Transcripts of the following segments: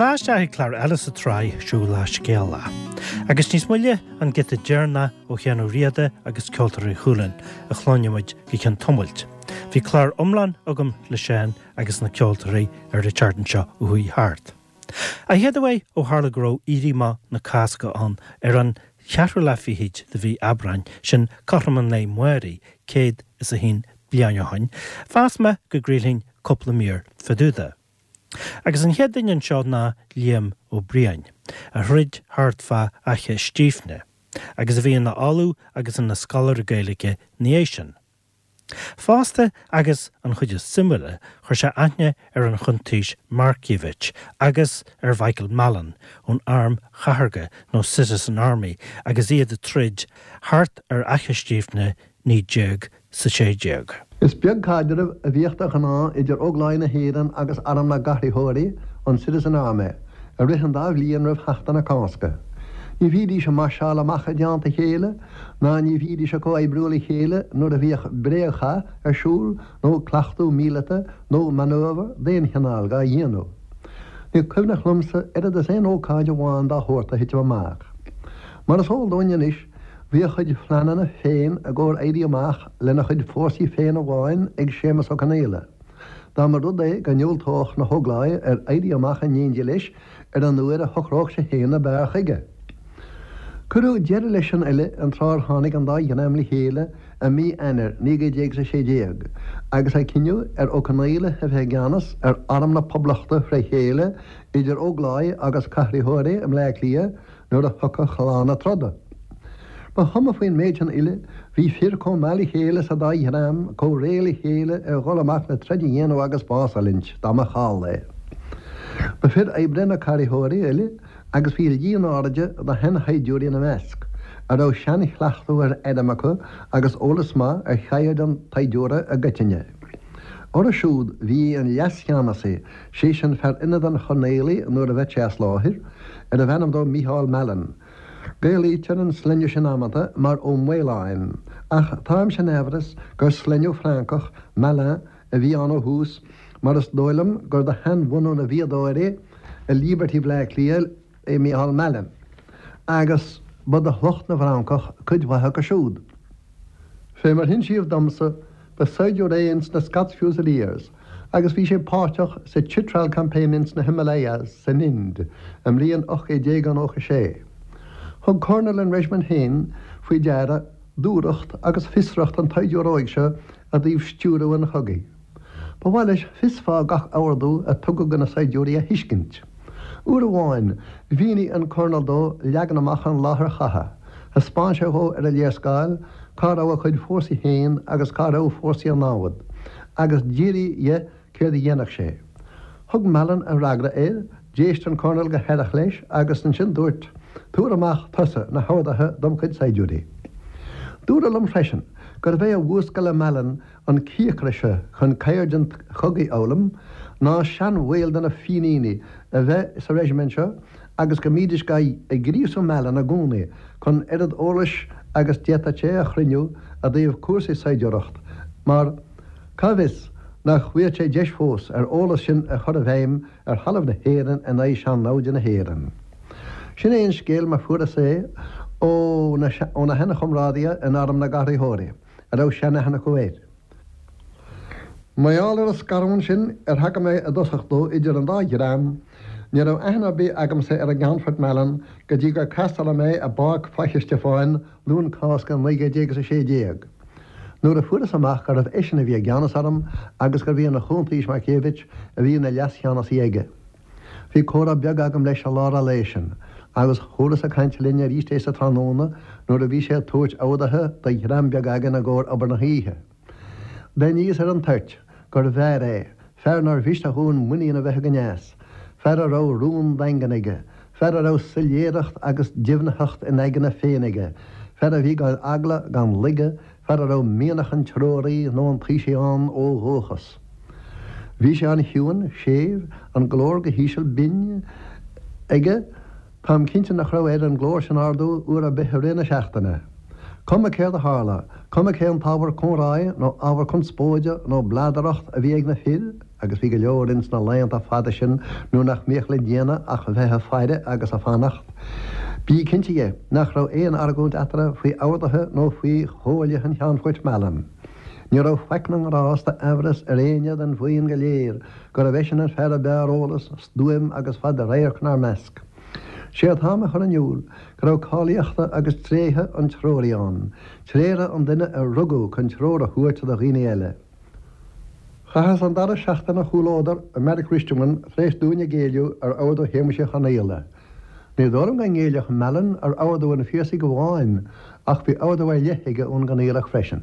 Tá isteach ag clár eile sa tsraith Siúl le Scéala. Agus níos moille an giota deireanach ó Sheán Ó Riada agus Ceoltóirí Chualann a chluinfidh muid go ceann tamaill. Bhí clár iomlán agam le Seán agus na ceoltóirí ar an tseachtain seo a chuaigh thart. An chéad uair ó tharla go raibh Éirí Amach na Cásca ann ar an cheathrú lá fichid de mhí Aibreáin, sin cothrom an lae amáirigh, 101 bliain ó shoin, mheas mé go gcraolfainn cúpla mír fá dtaobh de. Agus an chéad duine anseo ná Liam Ó Briain, a throid thart fá Fhaiche Stífne, agus a bhí ina ollamh agus ina scoláire Gaeilge ina dhiaidh sin. Fosta, agus an chuid is suimiúla, chuir sé aithne ar an Chuntaois Markievicz agus ar Mhichael Mallin ón Arm Chathartha nó Citizen Army agus iad ag troid thart ar Fhaiche Stífne 1916. Is beag caidreamh a bhíodh de ghnáth idir Ógláigh na hÉireann agus Arm na gCathraitheoirí, an Citizen Army, i rith an dá bhliain roimh Sheachtain na Cásca. Ní bhídís ag máirseáil amach i dteannta a chéile, ná ní bhídís ag comhoibriú le chéile nuair a bhíodh bréagchath ar siúl nó cleachtadh míleata nó manœuvre d'aon chineál dhá dhéanamh. Ní cuimhneach liomsa oiread is aon ócáid amháin dá shórt a thitim amach. Mar is eol dúinn anois, bhí a chuid phleananna féin i gcomhair éirí amach lena chuid fórsaí féin amháin ag Séamus Ó Conaola, dá mba rud é go ndiúltódh na hÓgláigh ar éirí amach in éindí leis ar an uair a shocródh sé féin ab fhearr chuige. Cuireadh deireadh leis sin uile an tráth ar tháinig an dá dhream le chéile i mí Eanáir 1916 agus é cinneadh ar Ó Conaola a bheith i gceannas ar Arm na Poblachta fré chéile idir Ógláigh agus Cathraitheoirí i mBleá Cliath nuair a thiocfadh lá na troda. Ba chuma faoin méid sin uile, bhí fir chomh maith le chéile sa dá dhream, chomh réidh le chéile ar dhul amach le troid a dhéanamh agus bás a fhulaingt, dá mba chall é. Ba fir oibre na Cathraitheoirí uile agus bhí líon áiride de sheanshaighdiúirí ina measc, a raibh seanchleachtadh ar airm acu agus eolas maith ar cheird an tsaighdiúra i gcoitinne. Orthu siúd bhí an leascheannasaí, sé sin fear ionaid an Choirnéalaigh nuair a bheadh sé as láthair, arbh ainm dó Mícheál Mallin. Gaelaítear an sloinne sin amanta mar Ó Maoláin, ach táimse in aimhreas gur sloinneadh Francach, Malin, a bhí ann ó thús, mar is dóigh liom gur de sheanbhunadh na bhfíodóirí i Liberty Bhleá Cliath é Mícheál Mallin, agus ba de shliocht na bhFrancach cuid mhaith acu siúd. Fé mar hinsíodh domsa, ba saighdiúir é ins na Scots Fusiliers agus bhí sé páirteach sa Chitral Campaign ins na Himalayas san Ind i mbliain 1896. Thug Colonel an reisimint féin faoi deara dúthracht agus fiosracht an tsaighdiúra óig seo i dtaobh stiúradh an chogaidh. Ba mhaith leis fios fáth gach ordú a tugadh do na saighdiúirí a thuiscint. Uair amháin, mhínigh an Colonel dó leagan amach an láthair chatha. Thaispeáin sé dhó ar an léarscáil cá raibh a chuid fórsaí féin agus cá raibh fórsaí an namhad, agus d'fhiafraigh dhe céard a dhéanfadh sé. Thug Mallin a fhreagra air, d'éist an Colonel go haireach leis agus ansin dúirt, Tabhair amach tusa na horduithe dom chuid saighdiúirí. Dúradh liom freisin gurbh é a mhúscail i Mallin an cíocras seo chun ceird an chogaidh a fhoghlaim ná seanbhaill de na Fíníní a bheith sa reisimint seo agus go mbídís ag gríosú Mallin i gcónaí chun oiread eolais agus d'fhéadfadh sé a chruinniú i dtaobh cúrsaí saighdiúireacht mar cá bhfios nach bhfaigheadh sé deis fós ar eolas sin a chur i bhfeidhm ar thalamh na hÉireann in aghaidh sean-naimhde na hÉireann. Sin é an scéal mar fuaireas é ó na sheanchomrádaithe in Arm na gCathraitheoirí. a raibh seanaithne acu air. Mar gheall ar an scarúint sin ar thagair mé i dtosach dó idir an dá dhream, ní raibh aithne ar bith agamsa ar an gCeannfort Mallin go dtí gur casteáladh mé i bPáirc Faiche Stiofáin Luan Cásca 1916, nuair a fuaireas amach gurbh eisean a bhí i gceannas orm agus gurbh é an Chuntaois Markievicz a bhí ina leascheannasaí aige. Bhí comhrá beag agam leis i lár an lae sin, agus chualas ag caint linn arís é sa tráthnóna nuair a bhí sé ag tabhairt orduithe do dhream beag againn i gcomhair obair na hoíche. D'aithníos ar an toirt gurbh fhear é, fear nár mhiste dhúinn muinín a bheith againn as, fear a raibh rún daingean aige, fear a raibh soiléireacht agus deimhnitheacht ina aigne féin aige, fear a bhí gan eagla gan laige, fear a raibh mianach an treoraí nó an taoisigh ann ó dhúchas. Bhí sé an-chiúin, séimh, an glór go híseal binn aige, táim cinnte nach raibh air an glór sin a ardú uair ar bith i rith na seachtaine. Cuma céard a tharla, cuma cén t-ábhar comhráidh nó ábhar conspóide nó bladaireacht a bhí ag na fir, agus bhí go leor ins na laethanta fada sin nuair nach mbíodh le déanamh ach bheith a' faire agus a' fanacht, bí cinnte dhe nach raibh aon argóint eatarthu faoi orduithe nó faoi chomhairle an Cheannfoirt Mallon. Ní raibh faic na ngrást d'aimhreas ar éinne den bhuíon go léir gurbh eisean an fear a b'fhearr eolas, stuaim agus fad radhairc 'nár measc. Sé atáim a chur in iúl go raibh cáilíochta agus tréithe an treoraí ann, tréithe an duine a rugadh chun treoir a thabhairt do dhaoine eile. Chaitheas an dara seachtain a chomhluadar i mBeairic Risteamain tar éis dúinn a géilleadh ar ordú Shéamuis Uí Chonaola. Ní dóigh liom go ngéillfeadh Mallon ar ordú an Phiarsaigh amháin ach bhí ordú ar leith aige ón gConaolach freisin.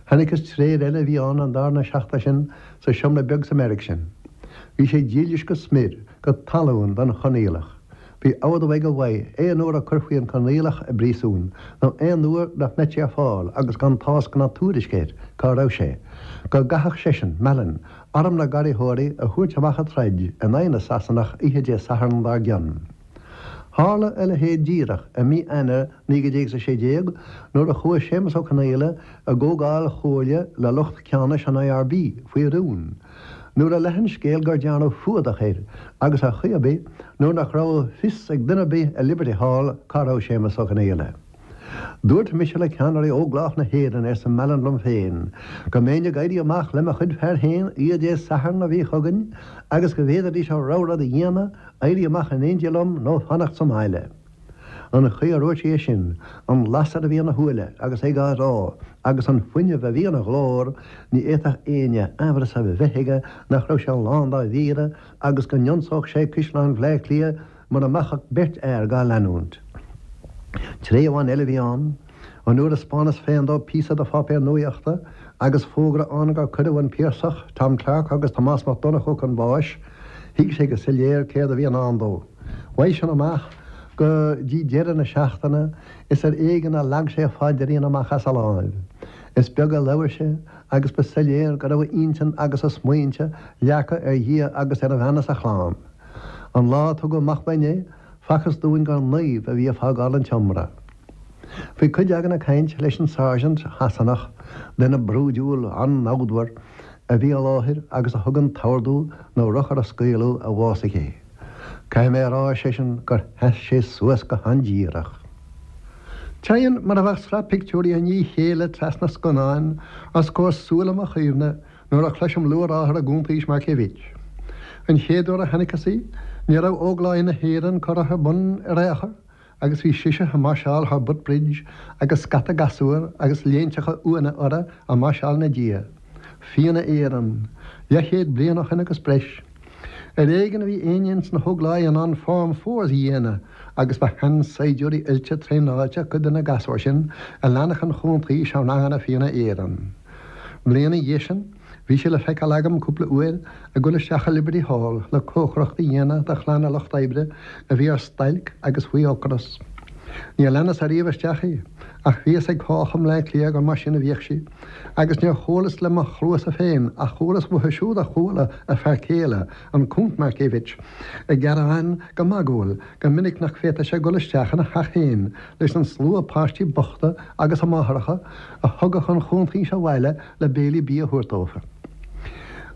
Chonaiceas tréith eile a bhí ann an darna seachtain sin sa seomra beag sa mbeairic sin. Bhí sé dílis go smior. go talún don Chonaolach. Bhí ordú aige uaidh aon uair a cuirfí an Conaolach i bpríosún, nó aon uair nach mbeadh sé ar fáil agus gan tásc ná tuairisc air cá raibh sé, go gcaithfeadh seisean, Mallon, arm na nGarraíthóirí a thabhairt amach a troid in aghaidh na Sasanach oíche Dé Sathairn dár gcionn. Tharla a leithéid díreach i mí Eanáir 1916 nuair a chuaigh Séamus Ó Conaola i gcomhdháil chomhairle le lucht ceannais an IRB faoi rún. Nuair a leath an scéal gur dearnadh fuadach air agus ar chaoi ar bith nuair nach raibh fios ag duine ar bith i Liberty Hall cá raibh Séamus Ó Conaola. Dúirt mise le ceannairí Óglach na hÉireann, arsa Mallon liom féin, go mbeinn ag éirí amach le mo chuid fear féin oíche Dé Sathairn a bhí chugainn agus go bhféadfaidís a rogha rud a dhéanamh, éirí amach in éindí liom nó fanacht sa mbaile. An chaoi a ndúirt sé é sin, an lasair a bhí ina shúile agus é á rá agus an fuinneamh a bhí ina ghlór, ní fhéadfadh éinne aimhreas a bheith aige nach raibh sé lán dá mhíre agus go n-ionsódh sé Caisleán Bhaile Átha Cliath mura mbeadh ach beirt fhear dhá leanúint. Tréith amháin eile a bhí ann, an uair a 'spáineas féin dó píosa de pháipéar nuaíochta agus fógra ann gur cuireadh an Piarsach, Tom Clarke agus Tomás Mac Donnchú chun báis, thuig sé go soiléir céard a bhí i ndán dó. Uaidh sin amach go dtí deireadh na seachtaine is ar éigean a leag sé a phaidrín amach as a láimh. Is beag a labhair sé agus ba soiléir go raibh a intinn agus a smaointe leagtha ar Dhia agus ar a bhean is a chlann. An lá a tugadh amach uainn é, facthas dúinn gur naomh a bhí ag fágáil an tseomra. Bhí cuid againn ag caint leis an sáirsint Shasanach, duine brúidiúil an-namhdmhar, a bhí i láthair agus a thug an t-ordú na rothair a scaoileadh a bhásaigh é. Caithfidh mé a rá, ar seisean, gur sheas sé suas go han-díreach. Téann mar a bheadh sraith pictiúirí i ndiaidh a chéile trasna scannáin os comhair súile mo chuimhne nuair a chloisim luathrátha ar an gCuntaois Markievicz. An chéad uair a chonaiceas í, ní raibh Ógláigh na hÉireann curtha ar bun ar aon chor agus bhí sise ag máirseáil thar Butt Bridge agus scata gasúr agus léinteacha uaine orthu ag máirseáil ina diaidh. Fianna Éireann. Leathchéad bliain ó shin agus breis. Ar éigean a bhí éinne ins na hÓgláigh in ann Form Fours a dhéanamh agus ba sheansaighdiúirí oilte traenáilte cuid de na gasúir sin a leanfadh an Chuntaois i ranganna Fianna Éireann. Bliain ina dhiaidh sin, Bhí sí le feiceáil agam cúpla uair ag dul isteach i Liberty Hall le cócaireacht a dhéanamh do chlanna lucht oibre a bhí ar stailc agus faoi ocras. Níor leanas ariamh isteach í, ach bhí fhios ag cách i mBleá Cliath gur mar sin a bhíodh sí, agus níor chualas le mo chluasa féin ach chualas uathu siúd a chuala a fear céile, an Cúnt Markievicz, ag gearán go magúil go minic nach bhféadfadh sé dul isteach ina theach féin leis an slua páistí bochta agus a máithreacha a thugadh an Chuntaois abhaile le béilí bídh a thabhairt dófa.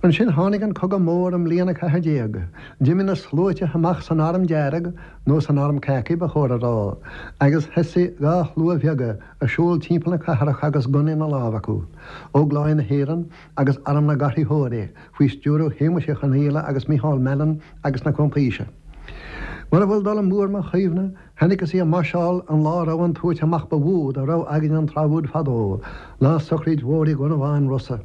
Ansin tháinig an Cogadh Mór i mbliain a 14. D'imigh na sluaite amach san Arm Dearg, nó san Arm Khaki ba chóir a rá, agus thosaigh dha shlua bheaga ag siúl timpeall na cathrach agus gunnaí ina lámh acu, Ógláigh na hÉireann agus Arm na gCarraitheoirí faoi stiúradh Shéamuis Uí Chonaola agus Micheál Mallon agus na Cuntaoise. Mura bhfuil dul amú ar mo chuimhne, Chonaiceas í ag máirseáil an lá a raibh an tabhairt amach ba mhó dá raibh againn an tráth úd fadó, lá sochraid mhór Uí Dhonnabháin Rosa.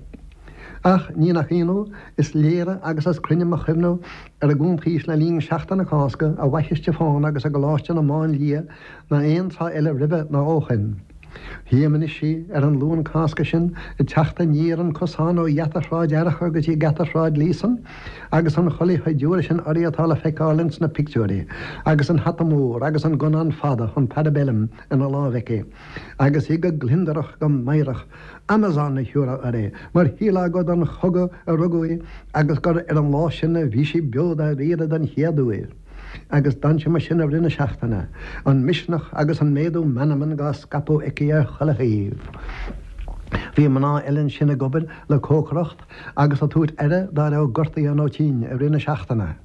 Ach, ní nach ionadh, is léire agus is cruinne mo chuimhne ar an gCuntaois le linn Seachtain na Cásca i bhFaiche Stiofáin agus i gColáiste na Máinlia ná aon tráth eile roimhe ná ó shoin. Tchím anois í ar an Luan Cásca sin ag teacht aniar an cosán ó gheata Shráid Fhearchair go dtí geata Shráid Líosain agus an chulaith shaighdiúra sin uirthi atá le feiceáil ins na pictiúirí agus an hata mór agus an gunnán fada, an parabellum, ina láimh aici agus í go gliondarach go meidhreach, Amazon a thiúrfá uirthi, mar shílfeá gur don chogadh a rugadh í agus gur ar an lá sin a bhí sí beo dáiríre den chéad uair. Agus d'fhan sí mar sin i rith na seachtaine, an misneach agus an méadú meanman dhá scaipeadh aici ar chuile thaobh. Bhí mná eile ansin ag obair le cócaireacht agus ag tabhairt aire dá raibh gortaithe nó tinn i rith na seachtaine.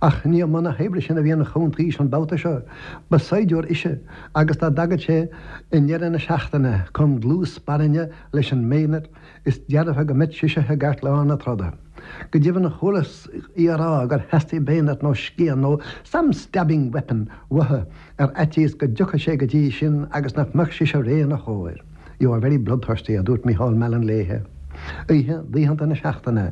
Ach ní i mbun na hoibre sin a bhí an Chuntaois an babhta seo. Ba saighdiúir ise agus dá dtagadh sé i ndeireadh na seachtaine chun dlús spairne leis an mbayonet Is dearfa go mbeadh sise i gceartlár na troda. Go deimhin chualas í a rá gur theastaigh bayonet nó scian nó some stabbing weapon uaithi ar fhaitíos go dtiocfadh sé go dtí sin agus nach mbeadh sise réidh ina chomhair. You are very bloodthirsty, a dúirt Micheál Mallon léithe. Oíche d'oícheanta na seachtaine,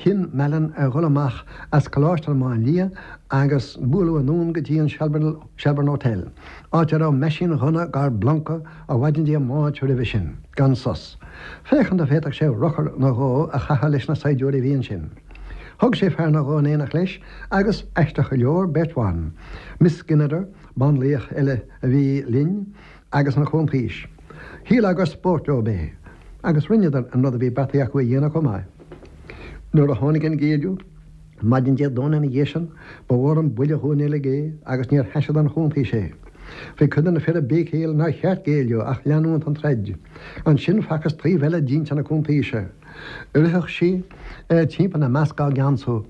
chinn Mallon ar dhul amach as Coláiste na Máinlia agus bualadh anonn go dtí an Shelbourne Hotel, áit a raibh meaisín-ghunna dhár bpluncadh ó mhaidin Dé Máirt roimhe sin, gan sos, féachaint an bhféadfadh sé rochar nó dhó a chaitheamh leis na saighdiúirí a bhí ansin. Thug sé fear nó dhó in éineacht leis agus, aisteach go leor, beirt bhan, Miss Skinnider, banlaoch eile a bhí linn, agus an Chuntaois. Shílfeá gur spórt leob é, agus rinneadar an rud a bhí beartaithe acu a dhéanamh chomh maith. Nuair a tháinig an géilleadh, Maidin Dé Domhnaigh ina dhiaidh sin, ba mhór an buille dhúinn uilig é agus níor thaise don Chuntaois é. Bhí cuid de na fir ag béicíl nár cheart géilleadh ach leanúint den troid. Ansin facthas taobh eile d'intinn na Cuntaoise. Ritheadh sí timpeall ina measc á gceansú.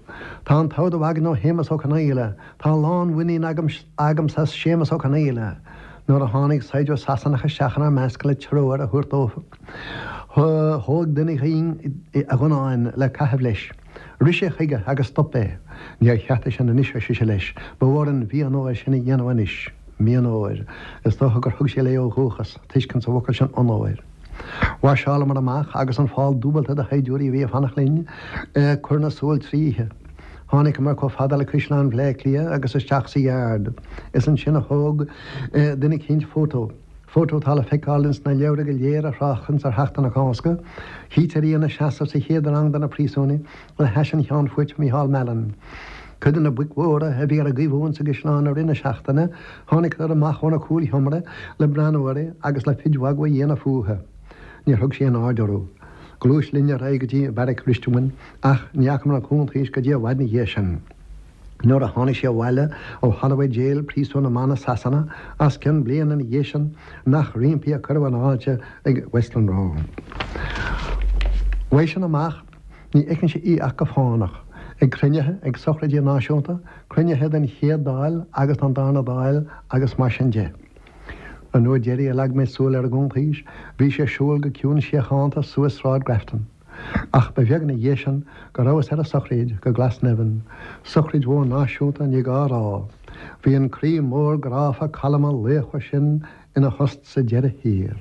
Tá an t-ordú againn ó Shéamus Ó Conaola. Tá lánmhuinín agamsa as Séamus Ó Conaola. Nuair a tháinig saighdiúir Sasanach isteach inár measc le treoir a thabhairt dóibh, thóg duine dhínn a ghunnán le caitheamh leis. Rith sé chuige agus stop é. Níor cheart é sin anois, ar sise leis, ba mhór an mhí-onóir sin a dhéanamh anois. Mí-onóir. Is dócha gur thug sé léi ó dhúchas, tuiscint sa bhfocal sin onóir. Mháirseálamar amach agus an fál dúbalta de shaighdiúirí a bhí ag fanacht linn ag cur na súl tríothu. Tháiniceamar chomh fada le Caisleán Bhleá Cliath agus isteach sa yard. Is ansin a thóg duine eicínt fótó. Fótó atá le feiceáil ins na leabhra go léir a thráchtanns ar Sheachtain na Cásca. Chítear í ina seasamh sa chéad rang de na príosúnaigh le hais an Cheannfoirt Micheál Mallon. Cuid de na boic mhóra a bhí ar a gcaomhú insa gcaisleán i rith na seachtaine, tháiniceadar amach óna cúlsheomra le breathnú uirthi agus le cuid mhagadh a dhéanamh fúithi. Níor thug sí aon aird orthu. Ghluais linn ar aghaidh go dtí Beairic Risteamain ach ní fhacamar an Chuntaois go dtí i bhfad ina dhiaidh sin. Nuair a tháinig sí abhaile ó Holloway Jail, príosún na mban i Sasana, os cionn bliana ina dhiaidh sin, nach roimpi a cuireadh an fháilte ag Westland Row. Uaidh sin amach, ní fheicfinnse í ach go fánach, ag cruinnithe, ag sochraidí náisiúnta, cruinnithe den Chéad Dáil agus den Darna Dáil agus mar sin de. An uair deiridh a leag mé súil ar an gCuntaois, bhí sí ag siúl go ciúin síochánta suas Sráid Grafton. Ach ba bheag ina dhiaidh sin go rabhas ar a sochraid go Glasnevin, sochraid mhór náisiúnta ní gá a rá. Bhí an croí mór gráfa calma laochmhar sin ina thost sa deireadh thiar.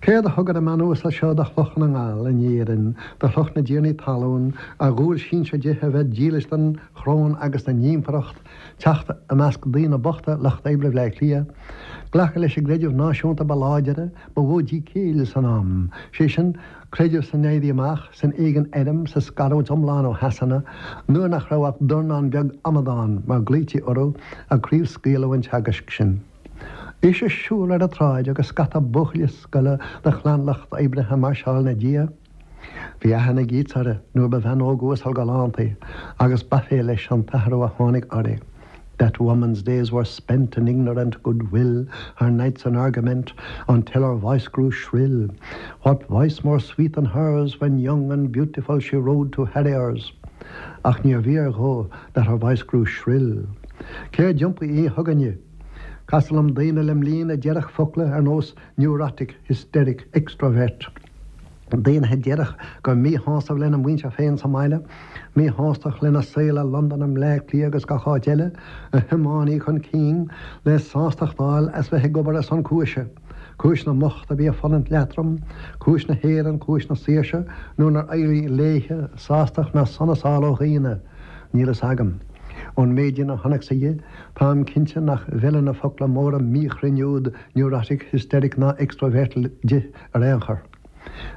Céard a thug ar an mbean uasal seo de shliocht na nGall in Éirinn, de shliocht na dtiarnaí talún, ar dhual sinsir di a bheith dílis don choróin agus don impireacht, teacht i measc daoine bochta lucht oibre Bhleá Cliath, glacadh leis an gcreideamh náisiúnta ba láidire, ba mhó di céill san am, sé sin, creideamh san Éirí Amach, san éigean airm, sa scarúint iomlán ó Shasana, nuair nach raibh ach dornán beag amadán, mar glaoití orthu, ag craobhscaoileadh an teagaisc sin. Ise ag siúl ar an tsráid agus scata buachaillí scoile de chlann lucht oibre ag máirseáil ina diaidh. Bhí aithne ag Yeats uirthi nuair ba bhean óg uasal galánta í agus b'aiféala leis an t-athrú a tháinig uirthi. That woman's days were spent in ignorant good-will, her nights in argument, until her voice grew shrill. What voice more sweet than hers when young and beautiful she rode to harriers? Ach níor bhfíor dhó that her voice grew shrill. Céard d'iompaigh í chugainne? Castar liom daoine le m'linn a déarfadh focla ar nós neurotic, hysteric, extrovert. Daoine a déarfadh gur míshásamh lena muintir féin sa mbaile, míshástacht lena saol i Londain, i mBleá Cliath agus gach áit eile, a thiomáin í chun cinn le sástacht a fháil as bheith ag obair ar son cúise, cúis na mbocht a bhí ag fulaingt leatrom, cúis na hÉireann, cúis na saoirse, nuair nár éirigh léithe sástacht ná sonas a fháil ó dhaoine, níl fhios agam. Ón méidín a chonacsa dhi, táim cinnte nach bhfeileann na focla móra míchruinn úd neurotic, hysteric ná extrovert di. Ar aon chor,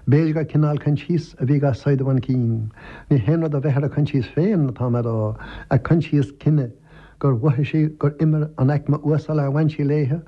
b'fhéidir gur cineál coinsias a bhí dhá saighdeadh chun cinn. Ní haon rud a bheith ar a coinsias féin atá mé a rá, a coinsias cine, gur mhothaigh sí gur imir an aicme uasal ar bhain sí léithe,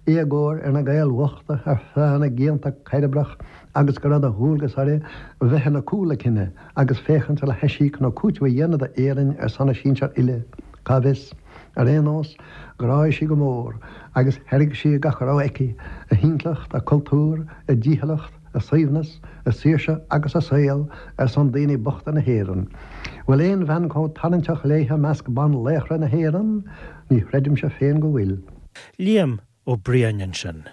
éagóir ar na Gaeil bhochta ar feadh na gcianta cairbreach agus go raibh de dhualgas uirthi bheith ina cúl a cine agus féachaint le haisíoc nó cúiteamh a dhéanamh d'Éirinn ar son a sinsear uile. Cá bhfios? Ar aon nós, ghráigh sí go mór, agus thairg sí gach a raibh aici, a hintleacht, a cultúr, a dícheallacht, a suaimhneas, a saoirse agus a saol, ar son daoine bochta na hÉireann. Bhfuil aon bhean chomh tarraingteach léithe i measc banlaochra na hÉireann? Ní chreidimse féin go bhfuil. Liam Ó Briain ansin.